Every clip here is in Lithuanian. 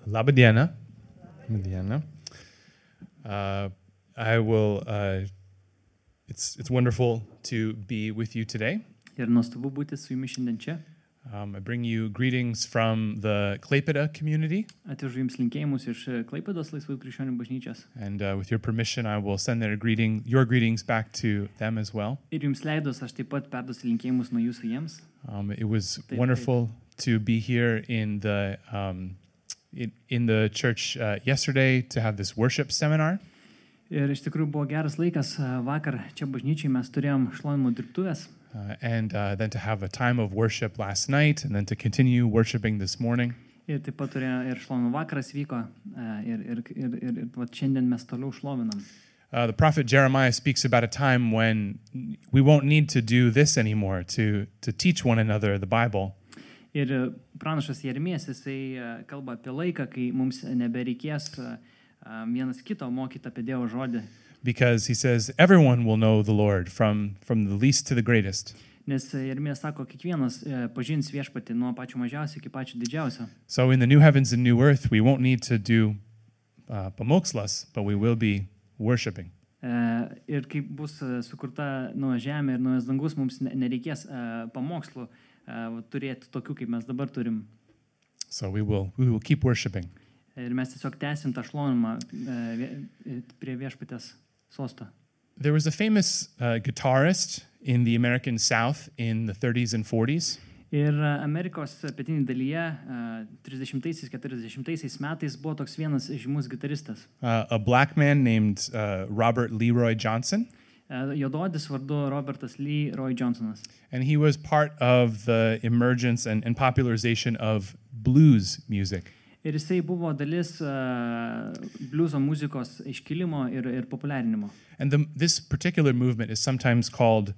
Laba diena. Laba diena. It's wonderful to be with you today. Ir nuostabu būti su jumis šiandien čia. I bring you greetings from the Klaipėda community. Atvežu jums linkėjimus iš Klaipėdos Laisvųjų krikščionių bažnyčios. And with your permission, I will send your greetings back to them as well. Ir jums leidus, aš taip pat perduosiu linkėjimus nuo jūsų jiems. It was wonderful to be here in the church yesterday to have this worship seminar. Ir iš tikrųjų buvo geras laikas vakar čia bažnyčiai, mes turėjom šlovinimo dirbtuves. And then to have a time of worship last night, and then to continue worshiping this morning. Ir taip pat turėjo ir šlovinimo vakaras vyko, ir šiandien mes toliau šlovinam. The prophet Jeremiah speaks about a time when we won't need to do this anymore, to teach one another the Bible. Ir pranašas Jeremijas, jisai kalba apie laiką, kai mums nebereikės vienas kito mokyti apie Dievo žodį. Because he says everyone will know the Lord from the least to the greatest. Nes Jeremijas sako, kiekvienas pažins viešpatį nuo pačio mažiausio iki pačio didžiausio. So in the new heavens and new earth, we won't need to do pamokslas, but we will be worshiping. Ir kai bus sukurta nauja žemė ir naujas dangus, mums nereikės pamokslų turėti tokių, kaip mes dabar turim. So we will keep worshiping. Ir mes tiesiog tęsim tą šlovinimą prie viešpatės sosto. There was a famous guitarist in the American South in the 30s and 40s. Ir Amerikos pietinėje dalyje 30-40 metais buvo toks vienas žymus gitaristas. A black man named Robert Leroy Johnson. Juodaodis vardu Robertas Leroy Johnsonas. And he was part of the emergence and popularization of blues music. Ir jisai buvo dalis blueso muzikos iškilimo ir populiarinimo. And this particular movement is sometimes called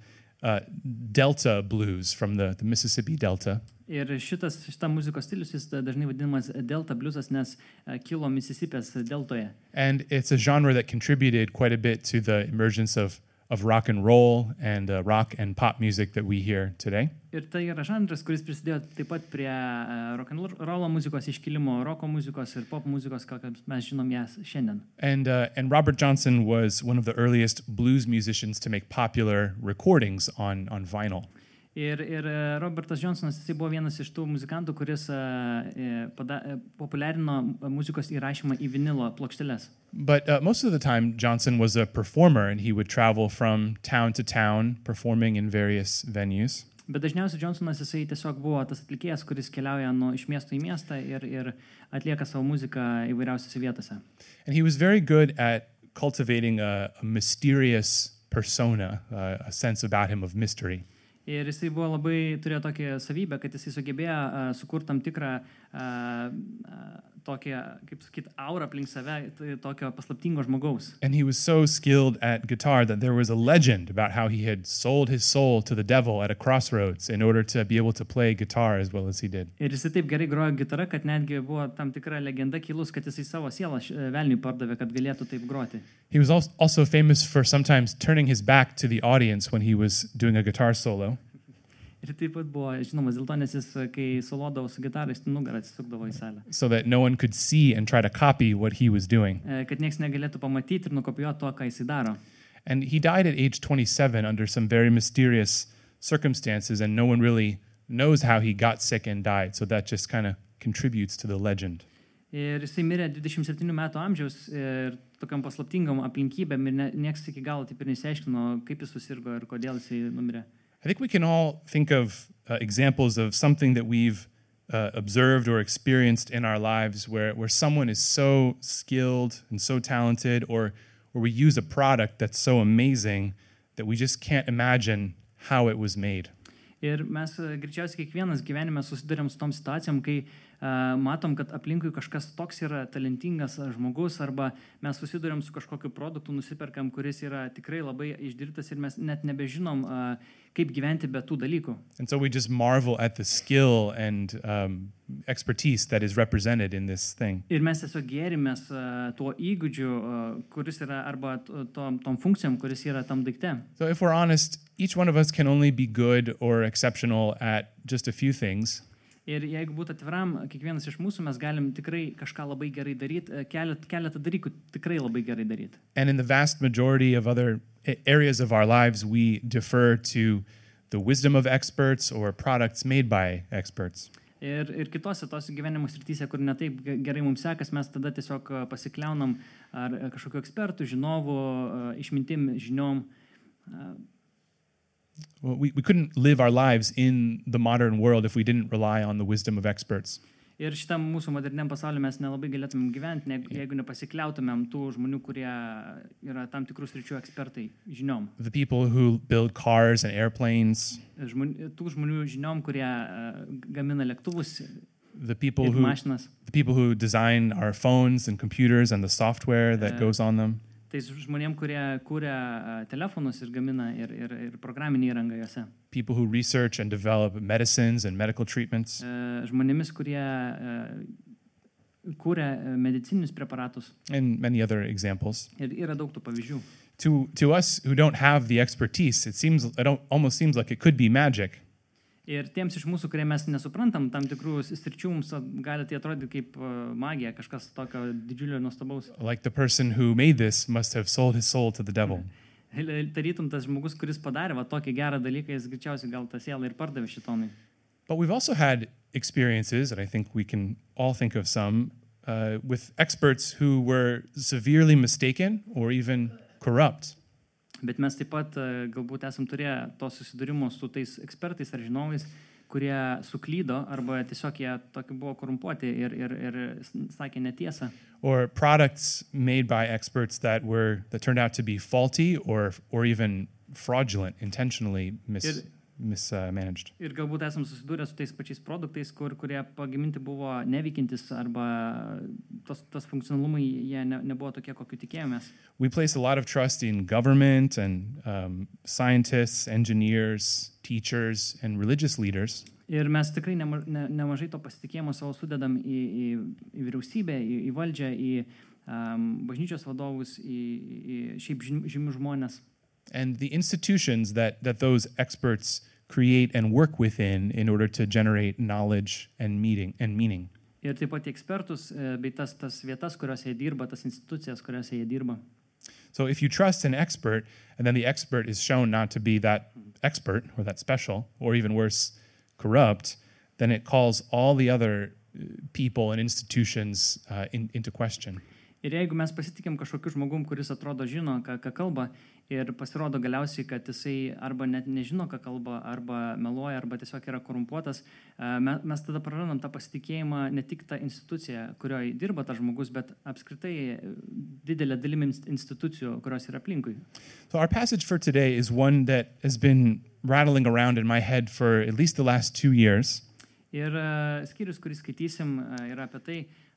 Delta blues from the Mississippi Delta. Ir šita muzikos stilius jis dažnai vadinamas Delta bluesas, nes kilo Misisipės deltoje. And it's a genre that contributed quite a bit to the emergence of rock and roll and rock and pop music that we hear today. Ir tai yra žanras, kuris prisidėjo taip pat prie rock and roll muzikos iškilimo, roko muzikos ir pop muzikos, kokią mes žinom jas šiandien. And Robert Johnson was one of the earliest blues musicians to make popular recordings on vinyl. Ir Robertas Johnsonas jisai buvo vienas iš tų muzikantų, kuris populiarino muzikos įrašymą į vinilo plokšteles. But most of the time Johnson was a performer and he would travel from town to town performing in various venues. Bet dažniausiai Johnsonas jisai tiesiog buvo tas atlikėjas, kuris keliauja iš miesto į miestą ir atlieka savo muziką įvairiausiose vietose. And he was very good at cultivating a mysterious persona, a sense about him of mystery. Ir jisai buvo turėjo tokią savybę, kad jisai sugebėjo sukurti tam tikrą tokią, kaip sakyt, aurą aplink save, tokio paslaptingo žmogaus. And he was so skilled at guitar that there was a legend about how he had sold his soul to the devil at a crossroads in order to be able to play guitar as well as he did. Ir jisai taip gerai grojo gitarą, kad netgi buvo tam tikra legenda kilus, kad jisai savo sielą velniui pardavė, kad galėtų taip groti. He was also famous for sometimes turning his back to the audience when he was doing a guitar solo. Ir taip pat buvo žinomas dėl to, nes jis, kai solodavo su gitarais, nugarą atsisukdavo į salę. So that no one could see and try to copy what he was doing. Kad nieks negalėtų pamatyti ir nukopijuoti to, ką jisai daro. And he died at age 27 under some very mysterious circumstances, and no one really knows how he got sick and died, so that just kind of contributes to the legend. Ir jisai mirė 27 metų amžiaus ir tokiam paslaptingam aplinkybėm ir nieks iki galo taip ir nesiaiškino, kaip jis susirgo ir kodėl jisai numirė. I think we can all think of examples of something that we've observed or experienced in our lives where someone is so skilled and so talented, or we use a product that's so amazing that we just can't imagine how it was made. Ir mes greičiausiai kiekvienas gyvenime susidurėm su tom situacijom, kai matom, kad aplinkui kažkas toks yra talentingas žmogus, arba mes susidurėm su kažkokiu produktu, nusiperkam, kuris yra tikrai labai išdirbtas ir mes net nebežinom, kaip gyventi be tų dalykų. And so we just marvel at the skill and expertise that is represented in this thing. Ir mes tiesiog gėrimės tuo įgūdžiu, kuris yra, arba tom funkcijom, kuris yra tam daikte. So if we're honest, each one of us can only be good or exceptional at just a few things. Ir jeigu būtų atviram, kiekvienas iš mūsų mes galim tikrai kažką labai gerai daryti, keletą dalykų tikrai labai gerai daryti. And in the vast majority of other areas of our lives, we defer to the wisdom of experts or products made by experts. Ir kitose tos gyvenimo srityse, kur netaip gerai mums sekas, mes tada tiesiog pasikliaunam ar kažkokiu ekspertų, žinovų, išmintim, žiniom. Well, we couldn't live our lives in the modern world if we didn't rely on the wisdom of experts. Ir šitam mūsų moderniam pasauliu mes nelabai galėtumėm gyventi, jeigu nepasikliautumėm tų žmonių, kurie yra tam tikrų sričių ekspertai žiniom. The people who build cars and airplanes, Tų žmonių žiniom, kurie gamina lėktuvus the people ir who mašinas. design our phones and computers and the software that goes on them. Tai žmonėm, kurie kūrė telefonus ir gamina ir programinį įrangą juose. People who research and develop medicines and medical treatments. Žmonėmis, kurie kūrė medicininius preparatus. And many other examples. Ir yra daug tų pavyzdžių. To us who don't have the expertise, almost seems like it could be magic. Ir tiems iš mūsų, kurie mes nesuprantam tam tikrų sričių, mums gali tai atrodyti kaip magija, kažkas tokio didžiulio ir nuostabaus. Like the person who made this must have sold his soul to the devil. Tarytum tas žmogus, kuris padarė tokį gerą dalyką, jis greičiausiai gal tą sielą ir pardavė šitonui. But we've also had experiences, and I think we can all think of some, with experts who were severely mistaken or even corrupt. Bet mes taip pat galbūt esam turėję to susidūrimo su tais ekspertais ar žinovais, kurie suklydo arba tiesiog jie tokie buvo korumpuoti ir sakė netiesą. Or products made by experts that turned out to be faulty or even fraudulent, intentionally mismanaged. Ir galbūt esam susidūrę su tais pačiais produktais, kurie pagaminti buvo neveikiantis arba tas funkcionalumai jie nebuvo tokie, kokiu tikėjomės. We place a lot of trust in government and scientists, engineers, teachers, and religious leaders. Ir mes tikrai nemažai to pasitikėjimo savo sudedam į vyriausybę, į valdžią, į bažnyčios vadovus, į šiaip žymių žmonės. And the institutions that those experts create and work within in order to generate knowledge and meaning. Ir taip pat ekspertus bei tas vietas, kuriuose jie dirba, tas institucijas, kuriuose jie dirba. So if you trust an expert and then the expert is shown not to be that expert or that special or even worse, corrupt, then it calls all the other people and institutions into question. Ir jeigu mes pasitikėm kažkokiu žmogum, kuris atrodo žino, ką kalba, ir pasirodo galiausiai, kad jisai arba net nežino, ką kalba, arba meluoja, arba tiesiog yra korumpuotas, mes tada prarandam tą pasitikėjimą ne tik tą instituciją, kurioje dirba tas žmogus, bet apskritai didelė dalimi institucijų, kurios yra aplinkui. So our passage for today is one that has been rattling around in my head for at least the last 2 years. Ir skyrius, kurį skaitysim, yra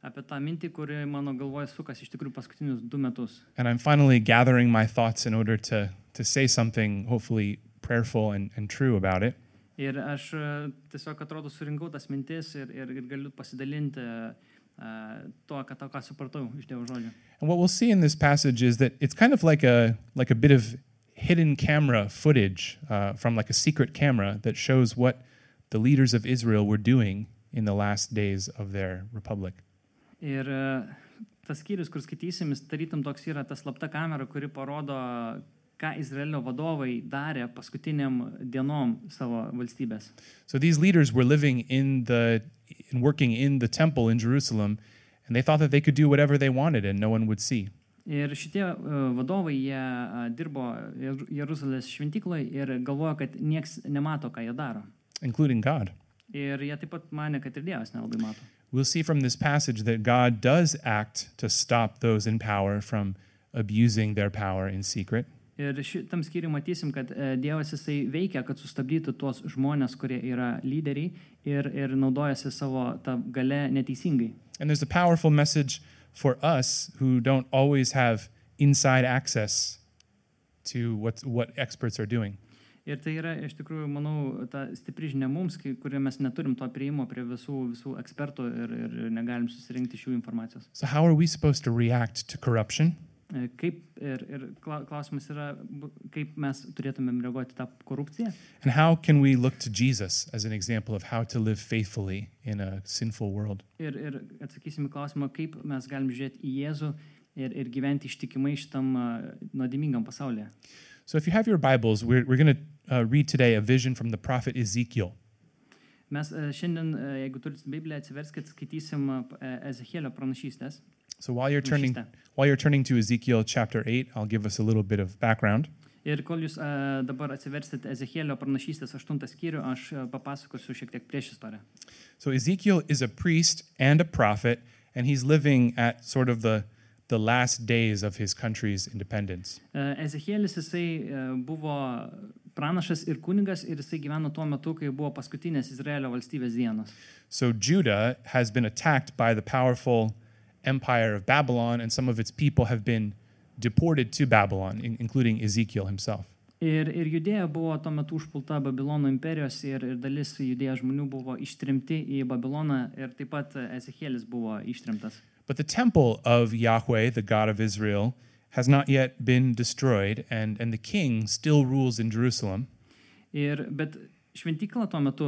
apie tą mintį, kuri mano galvoje sukas iš tikrųjų paskutinius 2 metus. And I'm finally gathering my thoughts in order to say something hopefully prayerful and true about it. Ir aš tiesiog atrodo surinkau tas mintis ir galiu pasidalinti ką supratau iš Dievo žodžio. And what we'll see in this passage is that it's kind of like a bit of hidden camera footage from like a secret camera that shows what the leaders of Israel were doing in the last days of their republic. Ir tas skyrius, kur skaitysim, tarytum toks yra ta slapta kamera, kuri parodo, ką Izraelio vadovai darė paskutiniam dienom savo valstybės. So these leaders were living and working in the temple in Jerusalem, and they thought that they could do whatever they wanted and no one would see. Ir šitie vadovai, jie dirbo Jeruzalės šventykloje ir galvojo, kad nieks nemato, ką jie daro. Including God. Ir jie taip pat manė, kad ir Dievas nelabai mato. We'll see from this passage that God does act to stop those in power from abusing their power in secret. Ir šitam skyriui matysim, kad Dievas jisai veikia, kad sustabdytų tuos žmonės, kurie yra lyderiai ir naudojasi savo tą galę neteisingai. And there's a powerful message for us who don't always have inside access to what experts are doing. Ir tai yra, iš tikrųjų, manau, ta stipri žinia mums, kurie mes neturim to prieimo prie visų ekspertų ir negalim susirinkti šių informacijos. So how are we supposed to react to corruption? Kaip ir klausimas yra, kaip mes turėtumėm reaguoti tą korupciją. And how can we look to Jesus as an example of how to live faithfully in a sinful world? Ir atsakysim į klausimą, kaip mes galim žiūrėti į Jėzų ir gyventi ištikimai šitam nuodėmingam pasaulyje. So if you have your Bibles, we're going to read today a vision from the prophet Ezekiel. Mes šiandien, jeigu turit Bibliją, atsiverskit, skaitysim Ezechielio pranašystės. So while you're turning to Ezekiel chapter 8, I'll give us a little bit of background. Ir kol jūs dabar atsiversit Ezechielio pranašystės 8 skyrių, aš papasakosiu šiek tiek prieš istoriją. So Ezekiel is a priest and a prophet, and he's living at sort of the last days of his country's independence. Ezekielis jisai buvo pranašas ir kunigas ir jisai gyveno tuo metu, kai buvo paskutinės Izraelio valstybės dienos. So Judah has been attacked by the powerful empire of Babylon, and some of its people have been deported to Babylon, including Ezekiel himself. Ir Judėja buvo tuo metu užpulta Babilono imperijos ir dalis Judėjos žmonių buvo ištrimti į Babiloną ir taip pat Ezekielis buvo ištrimtas. But the temple of Yahweh, the God of Israel, has not yet been destroyed, and the king still rules in Jerusalem. Bet šventykla tuo metu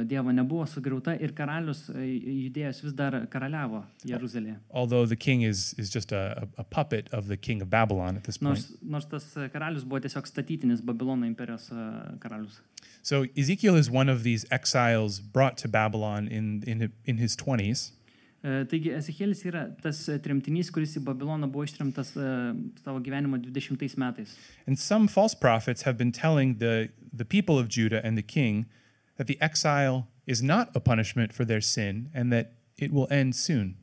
Dievo nebuvo sugriauta ir karalius Judėjos vis dar karaliavo Jeruzalėje. Although the king is just a puppet of the king of Babylon at this point. Nors tas karalius buvo tiesiog statytinis Babilono imperijos karalius. So Ezekiel is one of these exiles brought to Babylon in his 20s. Taigi Ezekielis yra tas tremtinys, kuris į Babiloną buvo ištremtas savo gyvenimo 20 metais. And some false prophets have been telling the people of Judah and the king that the exile is not a punishment for their sin and that it will end soon.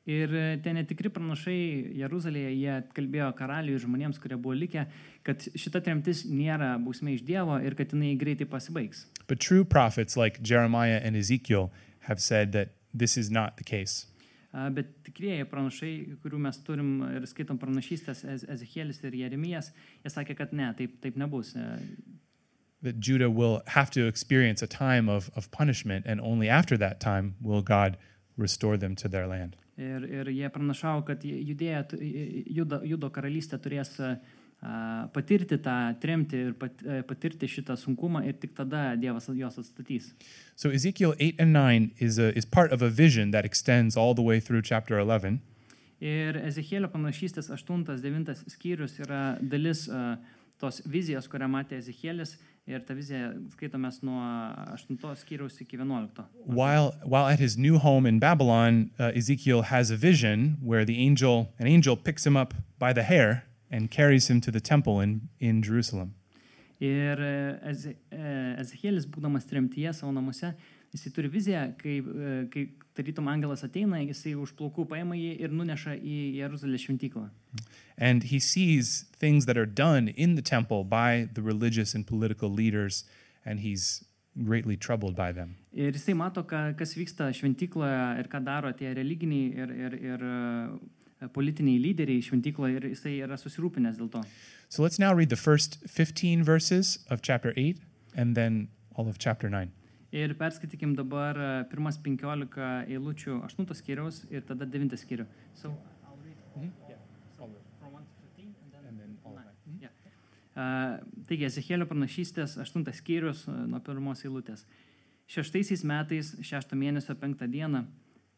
Ir tie netikri pranašai Jeruzalėje, jie kalbėjo karaliui ir žmonėms, kurie buvo likę, kad šita tremtis nėra bausmė iš Dievo ir kad jinai greitai pasibaigs. But true prophets like Jeremiah and Ezekiel have said that this is not the case. Bet tikrieji pranašai, kurių mes turim ir skaitom pranašystės, Ezekielis ir Jeremijas, jie sakė, kad ne, taip nebus. That Judah will have to experience a time of punishment, and only after that time will God restore them to their land. Ir jie pranašavo, kad Judo karalystė turės patirti tą tremtį ir patirti šitą sunkumą ir tik tada Dievas jos atstatys. So Ezekiel 8 and 9 is part of a vision that extends all the way through chapter 11. Ir Ezechielio pranašystės 8-9 skyrius yra dalis tos vizijos, kurią matė Ezekielis, ir ta vizija skaitomės nuo 8 skyriaus iki 11. While at his new home in Babylon, Ezekiel has a vision where an angel picks him up by the hair and carries him to the temple in Jerusalem. Ir Ezekielis, būdamas tremtyje savo namuose, jisai turi viziją, kai tarytum angelas ateina, jisai už plaukų paima jį ir nuneša į Jeruzalės šventyklą. And he sees things that are done in the temple by the religious and political leaders, and he's greatly troubled by them. Ir jisai mato, kas vyksta šventykloje ir ką daro tie religiniai ir politiniai lyderiai šventykloje, ir jisai yra susirūpinęs dėl to. So let's now read the first 15 verses of chapter 8 and then all of chapter 9. Ir perskaitykim dabar pirmas 15 eilučių 8 skyriaus ir tada 9 skyrių. So I'll read from 1 to 15 and then all of 9. Yeah. Taigi, Ezechielio pranašystės 8 skyrius nuo pirmos eilutės. 6 metais, 6 mėnesio 5 dieną,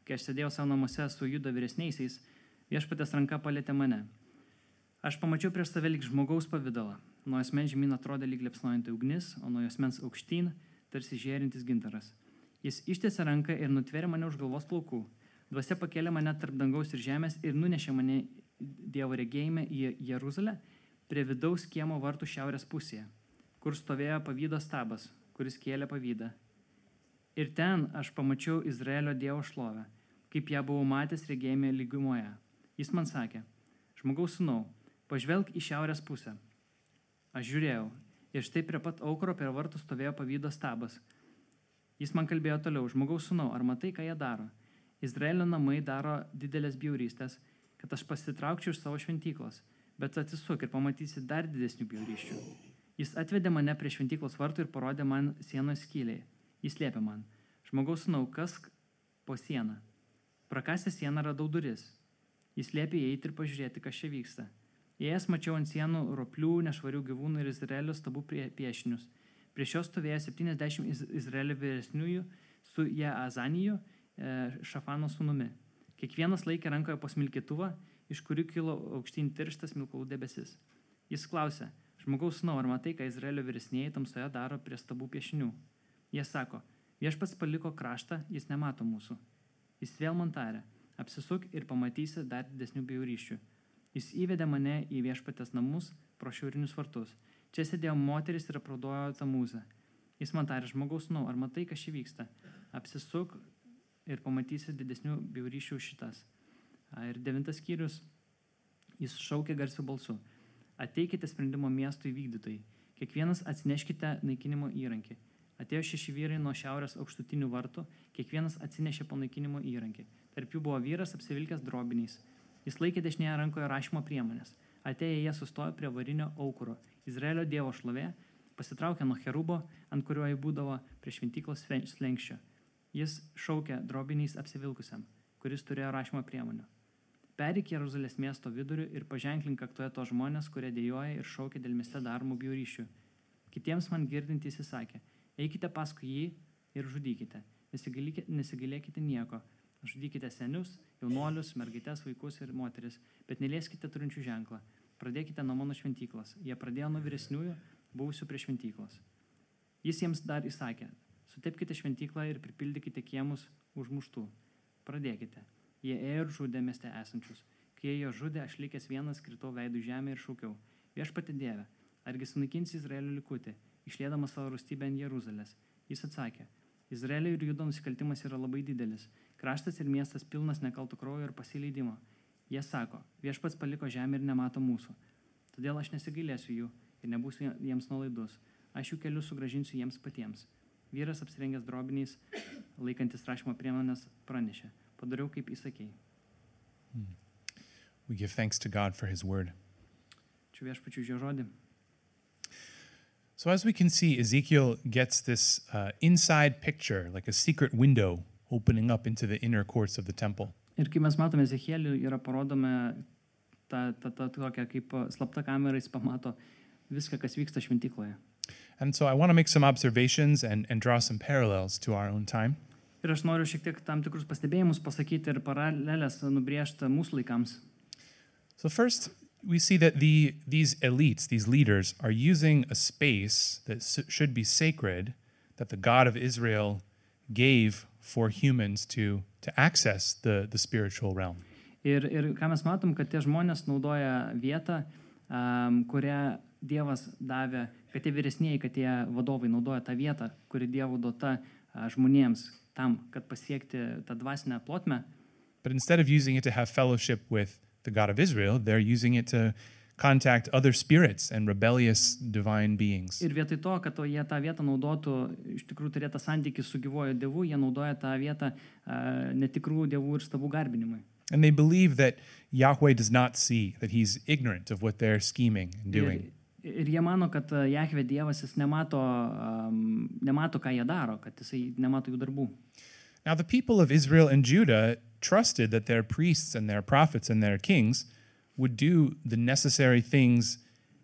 kai aš sėdėjau savo namuose su Judo vyresniaisiais, Viešpaties ranka palietė mane. Aš pamačiau prieš save lyg žmogaus pavidalą. Nuo asmens žemyn atrodė lyg liepsnojanti ugnis, o nuo asmens aukštyn tarsi žėrintis gintaras. Jis ištiesė ranką ir nutvėrė mane už galvos plaukų. Dvasia pakėlė mane tarp dangaus ir žemės ir nunešė mane Dievo regėjime į Jeruzalę prie vidaus kiemo vartų šiaurės pusėje, kur stovėjo pavydo stabas, kuris kėlė pavydą. Ir ten aš pamačiau Izraelio Dievo šlovę, kaip ją buvau matęs regėjime lygumoje. Jis man sakė, žmogaus sūnau, pažvelk į šiaurės pusę. Aš žiūrėjau, ir štai prie pat aukuro prie vartų stovėjo pavydo stabas. Jis man kalbėjo toliau, žmogaus sūnau, ar matai, ką jie daro? Izraelio namai daro didelės bjaurystės, kad aš pasitraukčiau iš savo šventyklos, bet atsisuk ir pamatysi dar didesnių bjaurysčių. Jis atvedė mane prie šventyklos vartų ir parodė man sienos skyliai. Jis liepė man, žmogaus sūnau, kas po sieną? Prakasęs sieną radau duris. Jis liepė įeiti ir pažiūrėti, kas čia vyksta. Įėjęs mačiau ant sienų roplių, nešvarių gyvūnų ir Izraelio stabų piešinius. Prieš juos stovėjo 70 Izraelio vyresniųjų su Jaazaniju, Šafano sūnumi. Kiekvienas laikė rankoje po smilkytuvą, iš kurių kilo aukštyn tirštas smilkalų debesis. Jis klausė: žmogaus sūnau, ar matai, ką Izraelio vyresnieji tamsoje daro prie stabų piešinių? Jie sako: viešpats paliko kraštą, jis nemato mūsų. Jis vėl man tarė: apsisuk ir pamatysi dar didesnių bjaurysčių. Jis įvedė mane į viešpatės namus pro šiaurinius vartus. Čia sėdėjo moteris ir apraudojo Tamūzą. Jis man tarė: žmogaus sūnau, ar matai, kas čia vyksta? Apsisuk ir pamatysi didesnių bjaurysčių šitas. Ir 9 skyrius. Jis šaukė garsiu balsu: ateikite sprendimo miesto įvykdytojai. Kiekvienas atsineškite naikinimo įrankį. Atėjo 6 vyrai nuo šiaurės aukštutinių vartų, kiekvienas atsinešė po naikinimo įrankį. Tarp jų buvo vyras apsivilkęs drobiniais. Jis laikė dešinėje rankoje rašymo priemonės. Atėję jie sustojo prie varinio aukuro. Izraelio dievo šlovė pasitraukė nuo cherubo, ant kurio jį būdavo prie šventyklos slenkščio. Jis šaukė drobiniais apsivilkusiam, kuris turėjo rašymo priemonių: pereik Jeruzalės miesto vidurių ir paženklink kaktoje tos žmonės, kurie dejuoja ir šaukia dėl mieste daromų bjaurysčių. Kitiems man girdintys įsakė: eikite paskui jį ir žudykite, nesigailėkite nieko. Žudykite senius, jaunuolius, mergaites, vaikus ir moteris, bet nelieskite turinčių ženklą. Pradėkite nuo mano šventyklos. Jie pradėjo nuo vyresniųjų, buvusių prie šventyklos. Jis jiems dar įsakė: sutepkite šventyklą ir pripildykite kiemus užmuštų. Pradėkite. Jie ėjo ir žudė mieste esančius. Kai jie jo žudė, aš likęs vienas kritau veidų žemę ir šaukiau: viešpatie Dieve, argi sunaikinsi Izraelio likutį, išliedamas savo rūstybę ant Jeruzalės? Jis atsakė: Izraelio ir Judo nusikaltimas yra labai didelis. Kraštas ir miestas pilnas nekalto kraujo ir pasileidimo. Jie sako: viešpats paliko žemę ir nemato mūsų. Todėl aš nesigailėsiu jų ir nebūsiu jiems nuolaidus. Aš jų kelius sugrąžinsiu jiems patiems. Vyras apsirengęs drobiniais, laikantis rašymo priemonės, pranešė: padariau, kaip įsakei. We give thanks to God for his word. Ačiū viešpačiui už jo žodį. So as we can see, Ezekiel gets this inside picture, like a secret window opening up into the inner courts of the temple. Ir kai mes matome Ezechielį, yra parodome ta tokia kaip slapta kamera, jis pamato viską, kas vyksta šventykloje. And so I want to make some observations and draw some parallels to our own time. Ir aš noriu šiek tiek tam tikrus pastebėjimus pasakyti ir paralelės nubrėžti mūsų laikams. So first, we see that these elites, these leaders, are using a space that should be sacred, that the God of Israel gave for humans to access the spiritual realm. Ir ką mes matom, kad tie žmonės naudoja vietą, kurią Dievas davė, kad tie vyresnieji, kad tie vadovai naudoja tą vietą, kuri Dievo duota žmonėms tam, kad pasiekti tą dvasinę plotmę. But instead of using it to have fellowship with the God of Israel, they're using it to contact other spirits and rebellious divine beings. Ir vietoj to, kad jie tą vietą naudotų, iš tikrųjų turėtų santykį su gyvuoju Dievu, jie naudoja tą vietą netikrų dievų ir stabų garbinimui. And they believe that Yahweh does not see, that he's ignorant of what they're scheming and doing. Ir jie mano, kad Jahve Dievas jis nemato, ką jie daro, kad jisai nemato jų darbų. Now the people of Israel and Judah trusted that their priests and their prophets and their kings would do the necessary things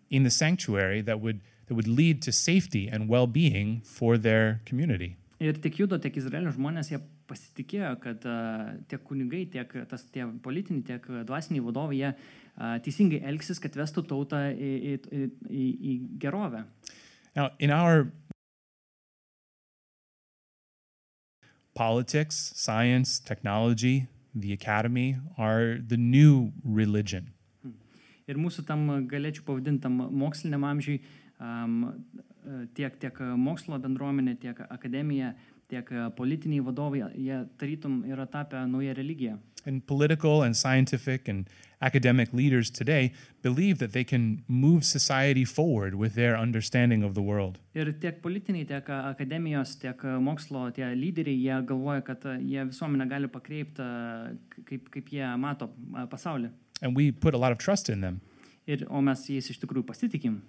in the sanctuary that would lead to safety and well-being for their community. Ir tiek Judo, tiek Izraelio žmonės, jie pasitikėjo, kad tiek kunigai, tiek tie politiniai, tiek dvasiniai vadovai, jie teisingai elgsis, kad vestų tautą į gerovę. Now, in our politics, science, technology, the academy are the new religion. Ir mūsų tam galėčiau pavadintam moksliniam amžiui, tiek mokslo bendruomenė, tiek akademija, tiek politiniai vadovai, jie tarytum yra tapę naują religiją. And political and scientific and academic leaders today believe that they can move society forward with their understanding of the world. Ir tiek politiniai, tiek akademijos, tiek mokslo, tie lyderiai, jie galvoja, kad jie visuomenę gali pakreipti, kaip jie mato pasaulį. And we put a lot of trust in them. O mes jais iš tikrųjų pasitikim.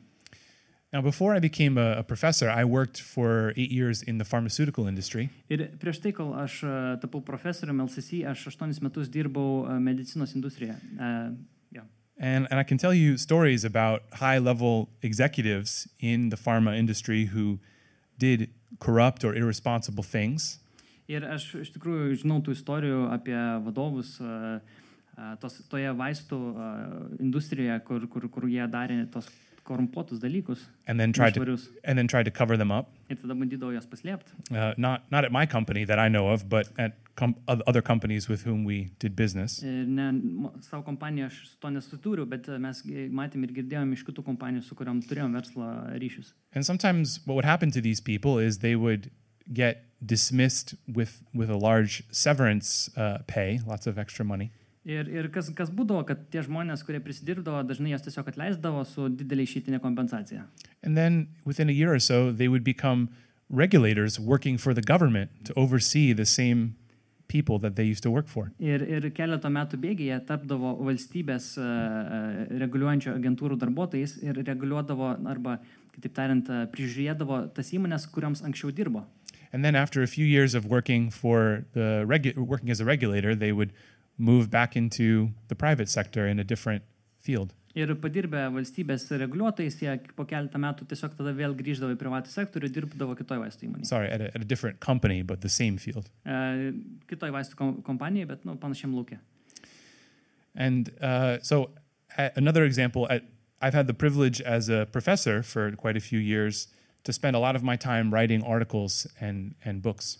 Now, before I became a professor, I worked for 8 years in the pharmaceutical industry. Ir prieš tai, kol aš tapau profesoriumi LCC, aš 8 metus dirbau medicinos industrijoje. And I can tell you stories about high-level executives in the pharma industry who did corrupt or irresponsible things. Ir aš iš tikrųjų žinau tų istorijų apie vadovus toje vaistų industrijoje, kur jie darė tos korumpuotus dalykus. And then tried to cover them up. Ir tada bandydavo jas paslėpti. Not at my company that I know of, but at other companies with whom we did business. Ir savo kompaniją aš su to nesutūriu, bet mes matėm ir girdėjom iš kitų kompanijų, su kuriam turėjom verslo ryšius. And sometimes what would happen to these people is they would get dismissed with a large severance pay, lots of extra money. Ir kas būdavo, kad tie žmonės, kurie prisidirbdavo, dažnai jas tiesiog atleisdavo su didelė išeitinė kompensacija. And then within a year or so, they would become regulators working for the government to oversee the same people that they used to work for. Ir keletą metų bėgyje tapdavo valstybės reguliuojančio agentūrų darbuotojais ir reguliuodavo arba, kitaip tariant, prižiūrėdavo tas įmonės, kuriams anksčiau dirbo. And then after a few years of working as a regulator, they would move back into the private sector in a different field. Ir padirbę valstybės reguliuotojais, jie po keletą metų tiesiog tada vėl grįždavo į privatų sektorių ir dirbdavo kitoj vaistų įmonėje. Sorry, at a different company, but the same field. Kitoj vaistų kompanijai, bet panašiam lauke. And so another example, I've had the privilege as a professor for quite a few years to spend a lot of my time writing articles and books.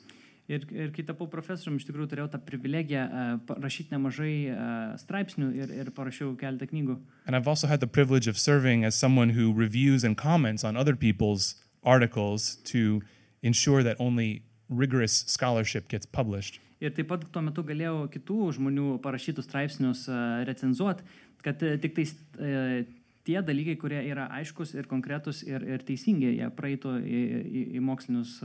Ir kai tapau profesoriumi, iš tikrųjų turėjau tą privilegiją rašyti nemažai straipsnių ir parašiau keletą knygų. And I've also had the privilege of serving as someone who reviews and comments on other people's articles to ensure that only rigorous scholarship gets published. Ir taip pat tuo metu galėjau kitų žmonių parašytus straipsnius recenzuoti, kad tik tais tie dalykai, kurie yra aiškus ir konkretus ir teisingi, jie praeitų į mokslinius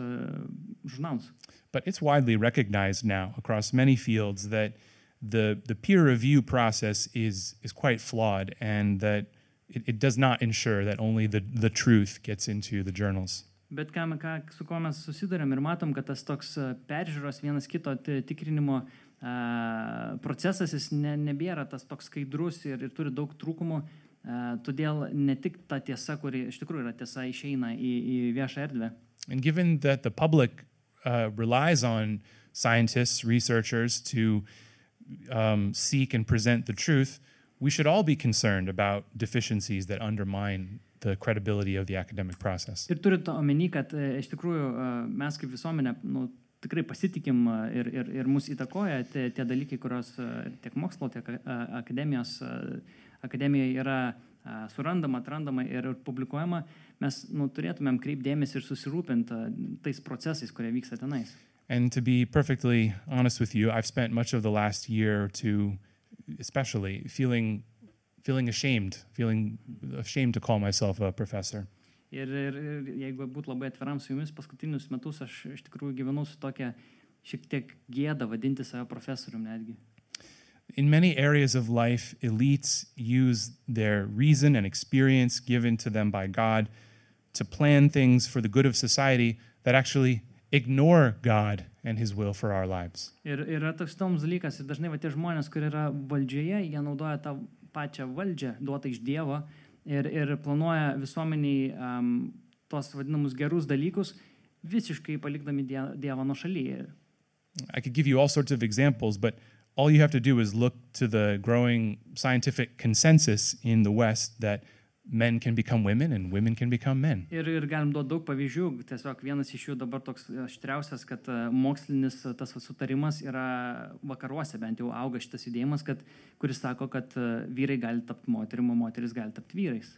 žurnalus. But it's widely recognized now across many fields that the peer review process is quite flawed and that it does not ensure that only the truth gets into the journals. Bet su kuo mes susidurėm ir matom, kad tas toks peržiūros vienas kito tikrinimo procesas jis nebėra tas toks skaidrus ir turi daug trūkumų. Todėl ne tik ta tiesa, kuri iš tikrųjų yra tiesa, išeina į viešą erdvę. And given that the public relies on scientists, researchers to seek and present the truth, we should all be concerned about deficiencies that undermine the credibility of the academic process. Ir turint omeny, kad iš tikrųjų mes kaip visuomenė tikrai pasitikim ir mus įtakoja tie dalykai, kurios tiek mokslo, tiek akademijoje yra surandama, atrandama ir publikuojama, mes turėtumėm kreipdėmėsi ir susirūpinti tais procesais, kurie vyksta tenais. And to be perfectly honest with you, I've spent much of the last year or two especially feeling ashamed to call myself a professor. Ir jeigu būtų labai atviram su jumis, paskutinius metus aš iš tikrųjų gyvenau su tokia šiek tiek gėda vadinti save profesorium netgi. In many areas of life, elites use their reason and experience given to them by God to plan things for the good of society that actually ignore God and His will for our lives. Ir yra toks toms dalykas, ir dažnai tie žmonės, kurie yra valdžioje, jie naudoja tą pačią valdžią duotą iš Dievo ir planuoja visuomeniai tos vadinamus gerus dalykus, visiškai palikdami Dievą nuošalyje. I could give you all sorts of examples, but all you have to do is look to the growing scientific consensus in the West that men can become women and women can become men. Ir galim duoti daug pavyzdžių, tiesiog vienas iš jų dabar toks aštriausias, kad mokslinis tas sutarimas yra vakaruose, bent jau auga šitas judėjimas, kuris sako, kad vyrai gali tapti moterim, o moteris gali tapti vyrais.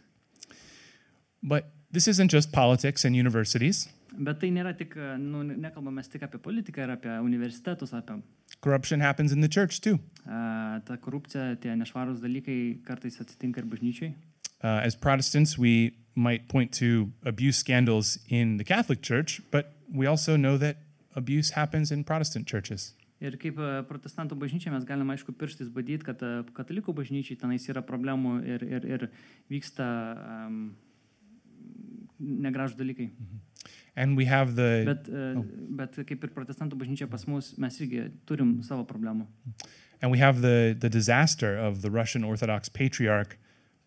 But this isn't just politics and universities. Bet tai nėra tik, nekalbame tik apie politiką ir apie universitetus, apie... Corruption happens in the church too. Ta korupcija, tie nešvarūs dalykai kartais atsitinka ir bažnyčiai. As Protestants, we might point to abuse scandals in the Catholic Church, but we also know that abuse happens in Protestant churches. Ir kaip protestantų bažnyčia mes galime aišku pirštais badyti, kad katalikų bažnyčiai tenais yra problemų ir vyksta negražūs dalykai. And we have Bet kaip ir protestantų bažnyčia pas mus, mes irgi turim savo problemų. And we have the disaster of the Russian Orthodox Patriarch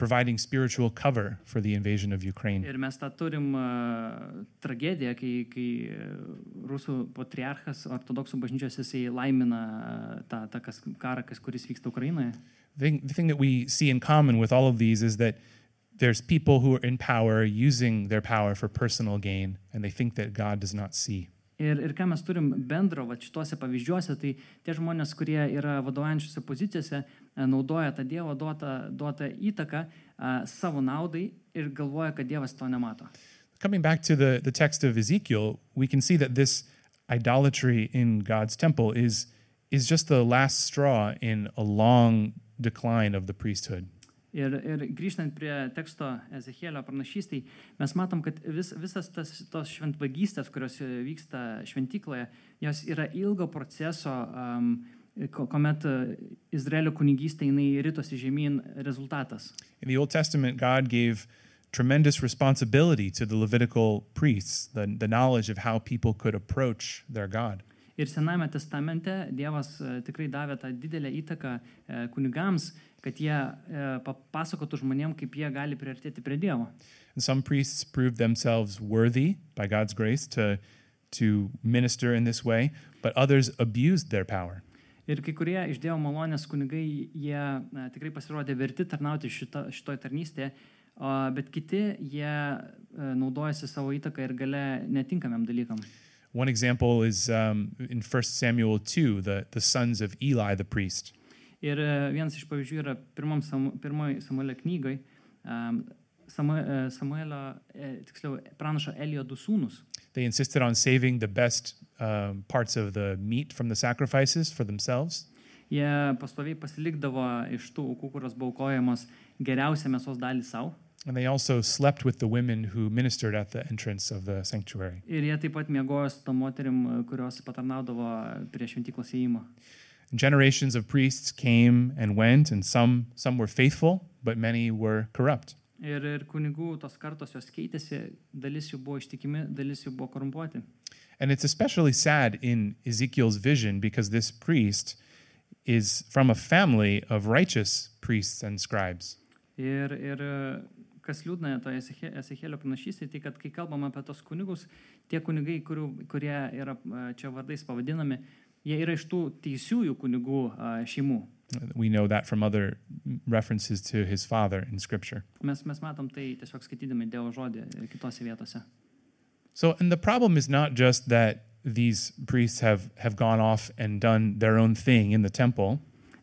providing spiritual cover for the invasion of Ukraine. Ir mes tą turim tragediją, kai rusų patriarchas ortodoksų bažnyčios jisai laimina tą karą, kuris vyksta Ukrainoje. The thing that we see in common with all of these is that there's people who are in power using their power for personal gain, and they think that God does not see. Ir ką mes turim bendro šituose pavyzdžiuose, tai tie žmonės, kurie yra vadovaujančiose pozicijose, naudoja tą Dievo duotą įtaką savo naudai ir galvoja, kad Dievas to nemato. Coming back to the text of Ezekiel, we can see that this idolatry in God's temple is just the last straw in a long decline of the priesthood. Ir grįžtant prie teksto Ezechielio pranašystėj, mes matom, kad visas tos šventvagystės, kurios vyksta šventykloje, jos yra ilgo proceso, kuomet Izraelio kunigystė jinai ritosi žemyn rezultatas. In the Old Testament, God gave tremendous responsibility to the Levitical priests, the knowledge of how people could approach their God. Ir Senajame testamente Dievas tikrai davė tą didelę įtaką kunigams, kad jie papasakotų žmonėm, kaip jie gali priartėti prie Dievo. And some priests proved themselves worthy by God's grace to minister in this way, but others abused their power. Ir kai kurie iš Dievo malonės kunigai, jie tikrai pasirodė verti tarnauti šitoj tarnystėje, bet kiti jie naudojasi savo įtaką ir gale netinkamiem dalykam. One example is in 1 Samuel 2, the sons of Eli the priest. Ir vienas iš pavyzdžių yra pirmoji Samuelio knygoj, tiksliau pranašo Elio du sūnus. They insisted on saving the best parts of the meat from the sacrifices for themselves. Jie pastoviai pasilikdavo iš tų aukų, kurios buvo aukojamos, geriausią mėsos dalį savo. And they also slept with the women who ministered at the entrance of the sanctuary. Ir jie taip pat miegojo su tom moterim, kurios patarnaudavo prie šventyklos įėjimo. Generations of priests came and went, and some were faithful, but many were corrupt. Ir kunigų tos kartos jos keitėsi, dalis jų buvo ištikimi, dalis jų buvo korumpuoti. And it's especially sad in Ezekiel's vision because this priest is from a family of righteous priests and scribes. Ir kas liūdna toje Ezechielio pranašystėje, tai kad kai kalbam apie tos kunigus, tie kunigai, kurie yra čia vardais pavadinami, jie yra iš tų teisiųjų kunigų šeimų. We know that from other references to his father in Scripture. Mes matom tai tiesiog skaitydami Dievo žodį kitose vietose. So, and the problem is not just that these priests have gone off and done their own thing in the temple.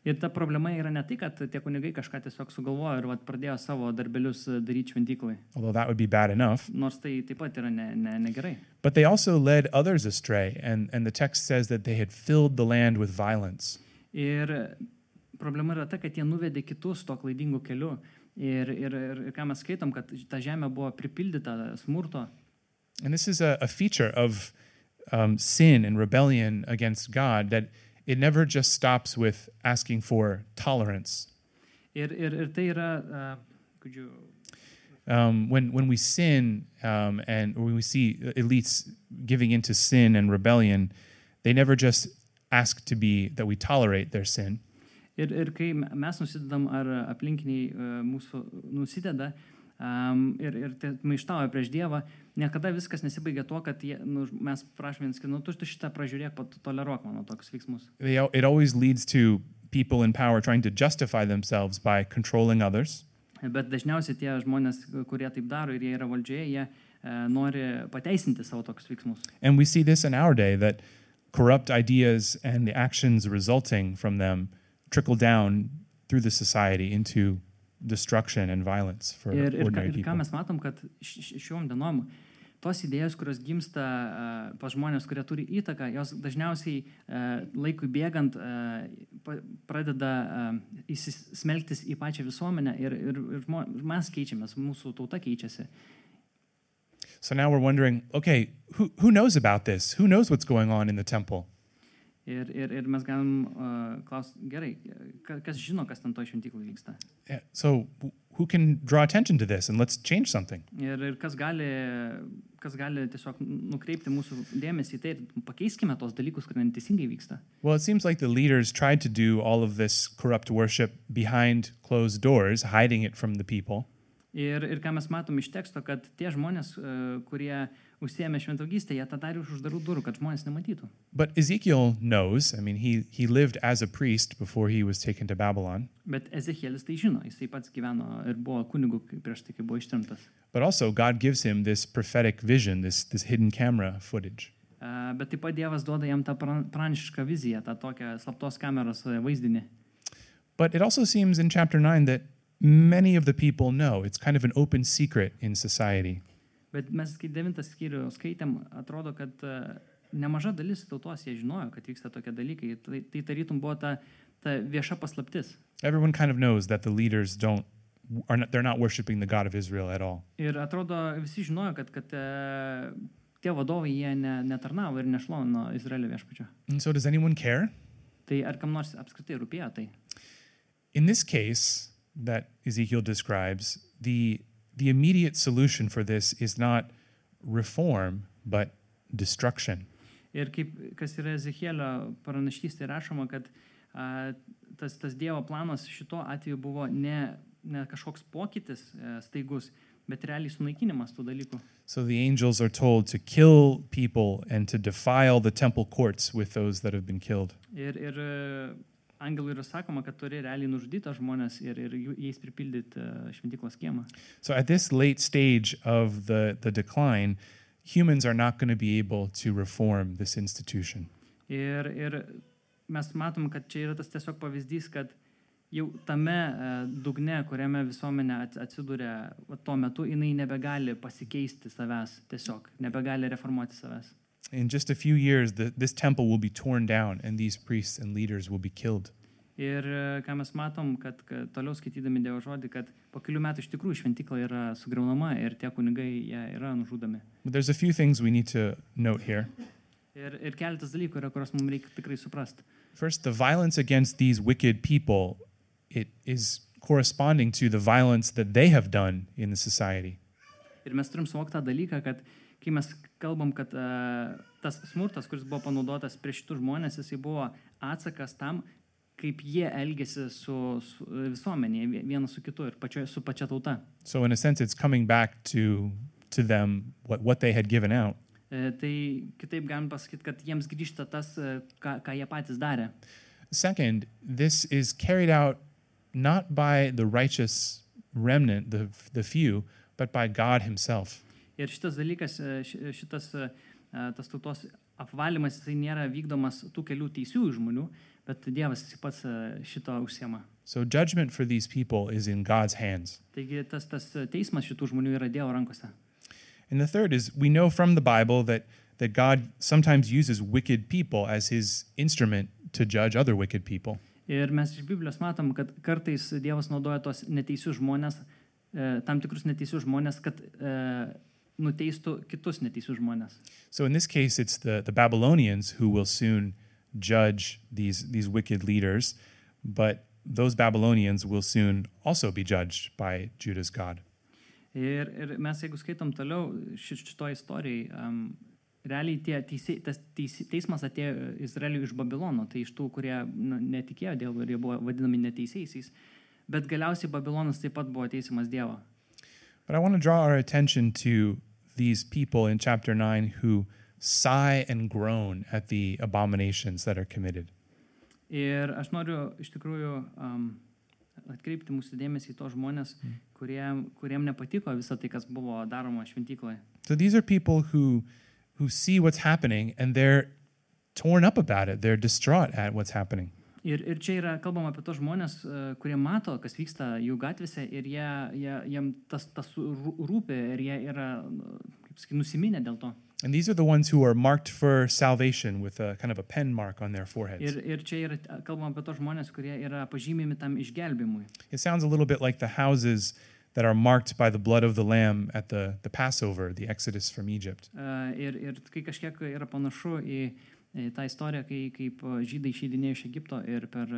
Ir ta problema yra ne tai, kad tie kunigai kažką tiesiog sugalvojo ir pradėjo savo darbelius daryti šventyklai. Although that would be bad enough. Nors tai taip pat yra negerai. But they also led others astray, and the text says that they had filled the land with violence. Ir problema yra ta, kad jie nuvedė kitus to klaidingų kelių. Ir ką mes skaitom, kad ta žemė buvo pripildyta smurto. And this is a feature of sin and rebellion against God, that it never just stops with asking for tolerance. Ir tai yra, could you... When we sin and when we see elites giving into sin and rebellion, they never just ask that we tolerate their sin. Ir kai mes nusidedam ar aplinkiniai mūsų nusideda ir maištauja prieš Dievą, niekada viskas nesibaigia tuo, kad mes prašome vienas, kad tu šitą pražiūrėk, toleruok mano tokius veiksmus. It always leads to people in power trying to justify themselves by controlling others. Bet dažniausiai tie žmonės, kurie taip daro ir jie yra valdžioje, jie nori pateisinti savo tokius veiksmus. And we see this in our day, that corrupt ideas and the actions resulting from them trickle down through the society into destruction and violence for ordinary people. Ir ką mes matom, kad šiom dienom tos idėjos, kurios gimsta pas žmonės, kurie turi įtaką, jos dažniausiai laikui bėgant pradeda įsismelktis į pačią visuomenę ir mes keičiamės, mūsų tauta keičiasi. So now we're wondering, okay, who knows about this? Who knows what's going on in the temple? Ir mes galim klausti, gerai, kas žino, kas ten to šventyklai vyksta. Yeah, so who can draw attention to this and let's change something? Ir kas gali tiesiog nukreipti mūsų dėmesį į tai ir pakeiskime tos dalykus, kurie neteisingai vyksta. Well, it seems like the leaders tried to do all of this corrupt worship behind closed doors, hiding it from the people. Ir ką mes matom iš teksto, kad tie žmonės, kurie užsiėmė šventvaugystę, jie tą darė už uždarų durų, kad žmonės nematytų. But Ezekiel knows, I mean, he lived as a priest before he was taken to Babylon. Bet Ezekielis tai žino, jisai pats gyveno ir buvo kunigu prieš tai, kai buvo ištremtas. But also God gives him this prophetic vision, this hidden camera footage. Bet taip pat Dievas duoda jam tą pranašišką viziją, tą tokią slaptos kameros vaizdinį. But it also seems in chapter 9 that many of the people know. It's kind of an open secret in society. Bet mes, kai 9 skyrių skaitėm, atrodo, kad nemaža dalis tautos jie žinojo, kad vyksta tokie dalykai. Tai tarytum buvo ta vieša paslaptis. Everyone kind of knows that the leaders they're not worshiping the God of Israel at all. Ir atrodo, visi žinojo, kad tie vadovai jie netarnavo ir nešlovino Izraelio viešpačio. And so does anyone care? Tai ar kam nors apskritai rūpėjo tai? In this case that Ezekiel describes, the immediate solution for this is not reform, but destruction. Ir kas yra Ezekielio pranašystėje rašoma, kad tas Dievo planas šito atveju buvo ne kažkoks pokytis staigus, bet realiai sunaikinimas tų dalykų. So the angels are told to kill people and to defile the temple courts with those that have been killed. Ir angelui yra sakoma, kad turi realiai nužudyti žmonės ir jais pripildyti šventyklos kiemą. So at this late stage of the decline, humans are not going to be able to reform this institution. Ir mes matom, kad čia yra tas tiesiog pavyzdys, kad jau tame dugne, kuriame visuomenė atsidūrė tuo metu, jinai nebegali pasikeisti savęs tiesiog, nebegali reformuoti savęs. In just a few years, this temple will be torn down and these priests and leaders will be killed. Ir ką mes matom, kad toliau skaitydami Dievo žodį, kad po kelių metų iš tikrųjų šventykla yra sugriaunama ir tie kunigai jie yra nužudomi. But there's a few things we need to note here. Ir keletas dalykų yra, kuriuos mums reikia tikrai suprasti. First, the violence against these wicked people, it is corresponding to the violence that they have done in the society. Ir mes turim suvokti tą dalyką, kad kai mes kalbam, kad tas smurtas, kuris buvo panaudotas prieš šitų žmonės, jisai buvo atsakas tam, kaip jie elgėsi su visuomenėje, vienas su kitu ir su pačia tauta. So in a sense, it's coming back to them what they had given out. Tai kitaip galim pasakyti, kad jiems grįžta tas, ką jie patys darė. Second, this is carried out not by the righteous remnant, the few, but by God himself. Ir šitas dalykas, tas tautos apvalymas, jisai nėra vykdomas tų kelių teisiųjų žmonių, bet Dievas pats šito užsiema. So judgment for these people is in God's hands. Taigi tas teismas šitų žmonių yra Dievo rankose. And the third is, we know from the Bible that God sometimes uses wicked people as his instrument to judge other wicked people. Ir mes iš Biblijos matom, kad kartais Dievas naudoja tos neteisius žmonės, tam tikrus neteisius žmonės, kad nuteistų kitus neteisius žmonės. So in this case, it's the Babylonians who will soon judge these wicked leaders, but those Babylonians will soon also be judged by Judah's God. Ir mes, jeigu skaitom toliau šito istorijai, realiai tas teismas atėjo Izraeliui iš Babilono, tai iš tų, kurie netikėjo Dievu ir jie buvo vadinami neteisiaisiais, bet galiausiai Babilonas taip pat buvo teisiamas Dievo. But I want to draw our attention to these people in chapter 9 who sigh and groan at the abominations that are committed. Ir aš noriu iš tikrųjų atkreipti mūsų dėmesį į tos žmonės, kuriem nepatiko visą tai, kas buvo daroma šventykloje. So these are people who see what's happening and they're torn up about it. They're distraught at what's happening. Ir čia yra kalbama apie tos žmonės, kurie mato, kas vyksta jų gatvėse ir jiem tas rūpi ir jie yra, kaip sakyti, nusiminę dėl to. And these are the ones who are marked for salvation with a kind of a pen mark on their foreheads. Ir čia yra kalbama apie tos žmonės, kurie yra pažymimi tam išgelbimui. It sounds a little bit like the houses that are marked by the blood of the lamb at the Passover, the Exodus from Egypt. Ir kai kažkiek yra panašu į tą istoriją, kaip žydai išeidinėjo iš Egipto ir per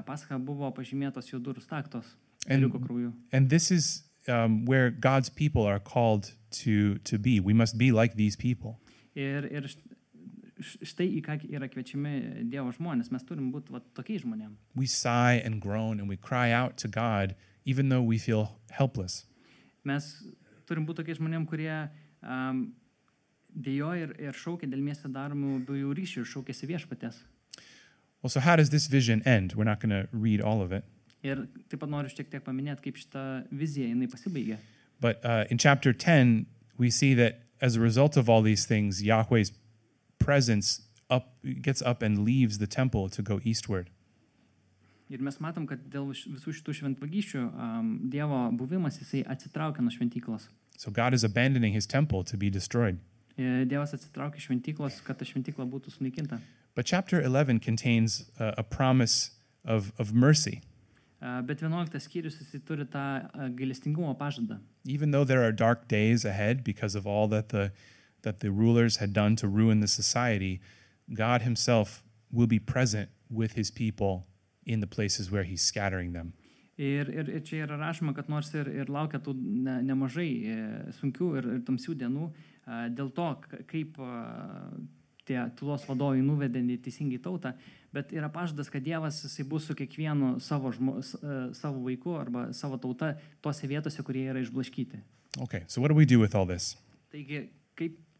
Paschą buvo pažymėtos jų durų staktos ėriuko krauju. And this is where God's people are called to be. We must be like these people. Ir štai į ką yra kviečiami Dievo žmonės. Mes turim būti tokiais žmonėm. We sigh and groan and we cry out to God even though we feel helpless. Mes turim būti tokiais žmonėm, kurie dėjoja ir šaukia dėl mieste daromų bjaurių ryšių ir šaukėsi viešpaties. Well, so how does this vision end? We're not going to read all of it. Ir taip pat noriu šiek tiek paminėti, kaip šita vizija jinai pasibaigė. But in chapter 10, we see that as a result of all these things, Yahweh's presence gets up and leaves the temple to go eastward. Ir mes matom, kad dėl visų šitų šventvagysčių Dievo buvimas jisai atsitraukia nuo šventyklos. So God is abandoning his temple to be destroyed. Dievas atsitraukia iš šventyklos, kad ta šventykla būtų sunaikinta. But chapter 11 contains a promise of mercy. Bet 11 skyrius jisai turi tą gailestingumo pažadą. Even though there are dark days ahead because of all that the rulers had done to ruin the society, God himself will be present with his people in the places where he's scattering them. Ir čia yra rašoma, kad nors ir laukia tų nemažai sunkių ir tamsių dienų, dėl to, kaip tie tylos vadovai nuvedė neteisingai tautą, bet yra pažadas, kad Dievas jisai bus su kiekvienu savo vaiku arba savo tauta tose vietose, kurie yra išblaškyti. Okay, so what do we do with all this? Taigi,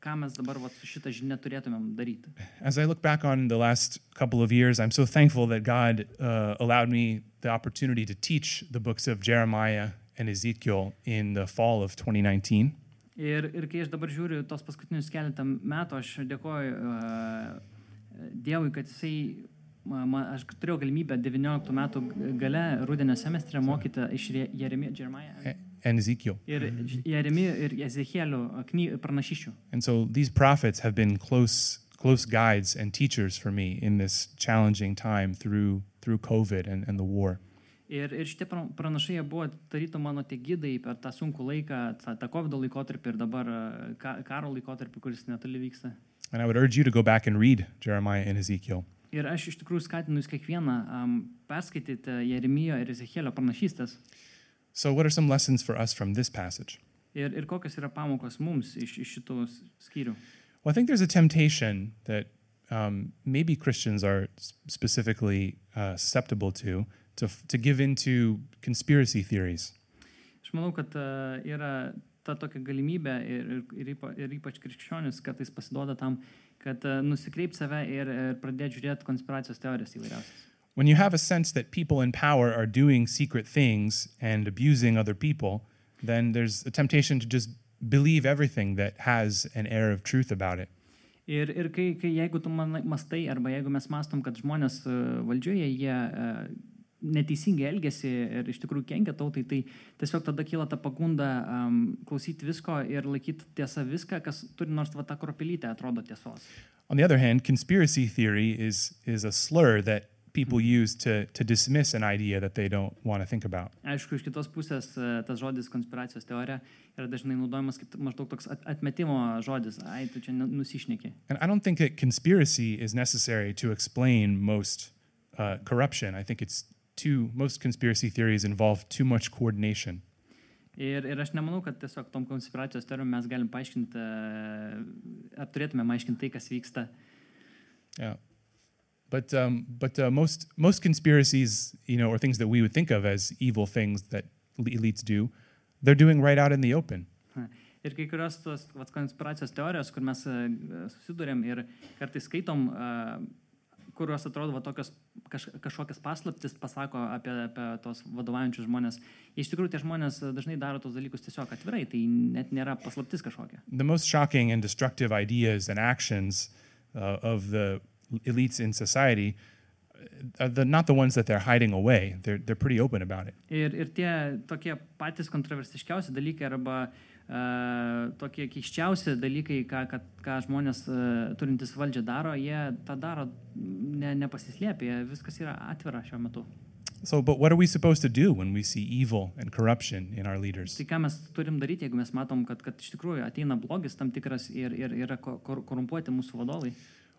ką mes dabar su šitą žinią turėtumėm daryti? As I look back on the last couple of years, I'm so thankful that God allowed me the opportunity to teach the books of Jeremiah and Ezekiel in the fall of 2019. Ir kai aš dabar žiūriu tos paskutinius keletą metų, aš dėkoju Dievui, kad aš turėjau galimybę 19 metų gale rudenio semestre mokyti iš Jeremiah and Ezekiel. Ir Jeremijo ir Ezechielio pranašysčių. And so these prophets have been close guides and teachers for me in this challenging time through COVID and the war. Ir šitie pranašai buvo tarytum mano tie gidai per tą sunkų laiką, tą COVID laikotarpį ir dabar karo laikotarpį, kuris netoli vyksta. And I would urge you to go back and read Jeremiah and Ezekiel. Ir aš iš tikrųjų skatinu jūs kiekvieną perskaityti Jeremijo ir Ezechielio pranašystes. So what are some lessons for us from this passage? Ir kokios yra pamokos mums iš šitų skyrių? Well, I think there's a temptation that maybe Christians are specifically susceptible to give into conspiracy theories. Aš manau, kad yra ta tokia galimybė ir ypač krikščionis kartais pasiduoda tam, kad nusikreipt save ir pradėti žiūrėti konspiracijos teorijas įvairiausias. When you have a sense that people in power are doing secret things and abusing other people, then there's a temptation to just believe everything that has an air of truth about it. Ir kai jeigu tu mastai arba jeigu mes mastom, kad žmonės valdžioje jie neteisingai elgesi ir iš tikrųjų kenkia tautai, tai tiesiog tada kyla ta pagunda klausyti visko ir laikyti tiesą viską, kas turi nors va tą kropelytę atrodo tiesos. On the other hand, conspiracy theory is a slur that people use to dismiss an idea that they don't want to think about. Aišku, iš kitos pusės tas žodis konspiracijos teorija yra dažnai naudojamas kaip maždaug toks atmetimo žodis. Ai, tu čia nusišneki. And I don't think that conspiracy is necessary to explain most corruption. I think most conspiracy theories involve too much coordination. Ir aš nemanau, kad tiesiog tom konspiracijos teorijom mes galim paaiškinti, ar turėtume aiškinti tai, kas vyksta. Yeah. But most conspiracies, or things that we would think of as evil things that elites do, they're doing right out in the open. Ir kai kurios tos konspiracijos teorijos, kur mes susidurėm ir kartais skaitom, kurios atrodo tokios kažkokias paslaptis pasako apie tos vadovaujančius žmonės. Iš tikrųjų, tie žmonės dažnai daro tos dalykus tiesiog atvirai, tai net nėra paslaptis kažkokia. The most shocking and destructive ideas and actions of the elites in society are not the ones that they're hiding away. They're pretty open about it. Ir tie tokie patys kontroversiškiausi dalykai arba tokie keiščiausi dalykai, ką žmonės turintys valdžią daro, jie tą daro nepasislėpę, viskas yra atvira šiuo metu. So, but what are we supposed to do when we see evil and corruption in our leaders? Tai ką mes turim daryti, jeigu mes matom, kad iš tikrųjų ateina blogis tam tikras ir yra korumpuoti mūsų vadovai?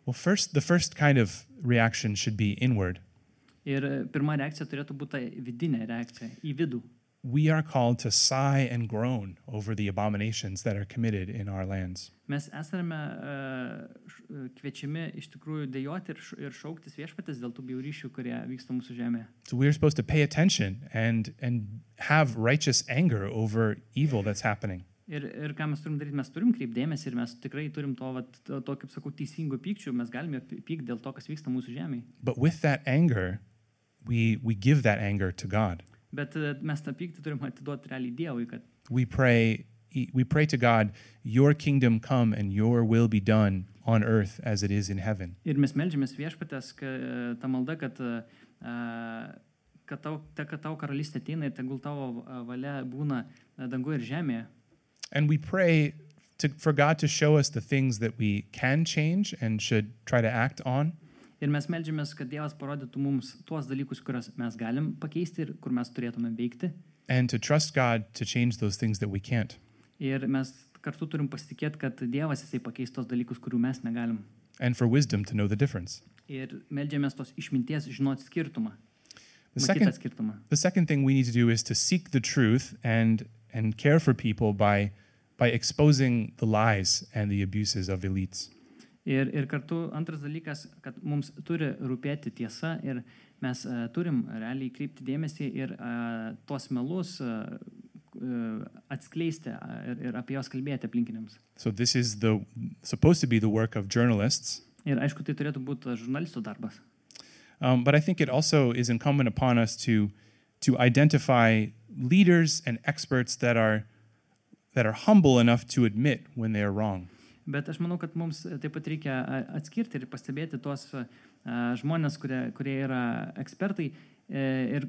Well, the first kind of reaction should be inward. Ir pirma reakcija turėtų būti ta vidinė reakcija į vidų. We are called to sigh and groan over the abominations that are committed in our lands. Mes esame kviečiami iš tikrųjų dejoti ir šauktis viešpatės dėl tų bjaurysčių, kurie vyksta mūsų žemėje. So we're supposed to pay attention and have righteous anger over evil that's happening. Ir ką mes turim daryti, mes turim kreipdėmėsi ir mes tikrai turim to kaip sakau, teisingų pykčių, mes galime pykti dėl to, kas vyksta mūsų žemėje. But with that anger, we give that anger to God. Bet mes tą pyktį turim atiduoti realiai Dievui, kad We pray to God, your kingdom come and your will be done on earth as it is in heaven. ir mes meldžiamės viešpatės, ta malda, kad tavo karalystė ateina ir tegul tavo valia būna danguje ir žemėje. And we pray for God to show us the things that we can change and should try to act on. Ir mes meldžiamės, kad Dievas parodytų mums tuos dalykus, kuriuos mes galim pakeisti ir kur mes turėtume veikti. And to trust God to change those things that we can't. Ir mes kartu turim pasitikėti, kad Dievas jisai pakeis tos dalykus, kurių mes negalim. And for wisdom to know the difference. Ir meldžiamės tos išminties žinoti skirtumą. The second thing we need to do is to seek the truth and care for people by exposing the lies and the abuses of elites. Ir kartu antras dalykas, kad mums turi rūpėti tiesa ir mes turim realiai kreipti dėmesį ir tos melus atskleisti ir apie jos kalbėti aplinkiniams. So this is supposed to be the work of journalists. Ir aišku, tai turėtų būti žurnalistų darbas. But I think it also is incumbent upon us to identify leaders and experts that are humble enough to admit when they are wrong. Bet aš manau, kad mums taip pat reikia atskirti ir pastebėti tos žmonės, kurie yra ekspertai ir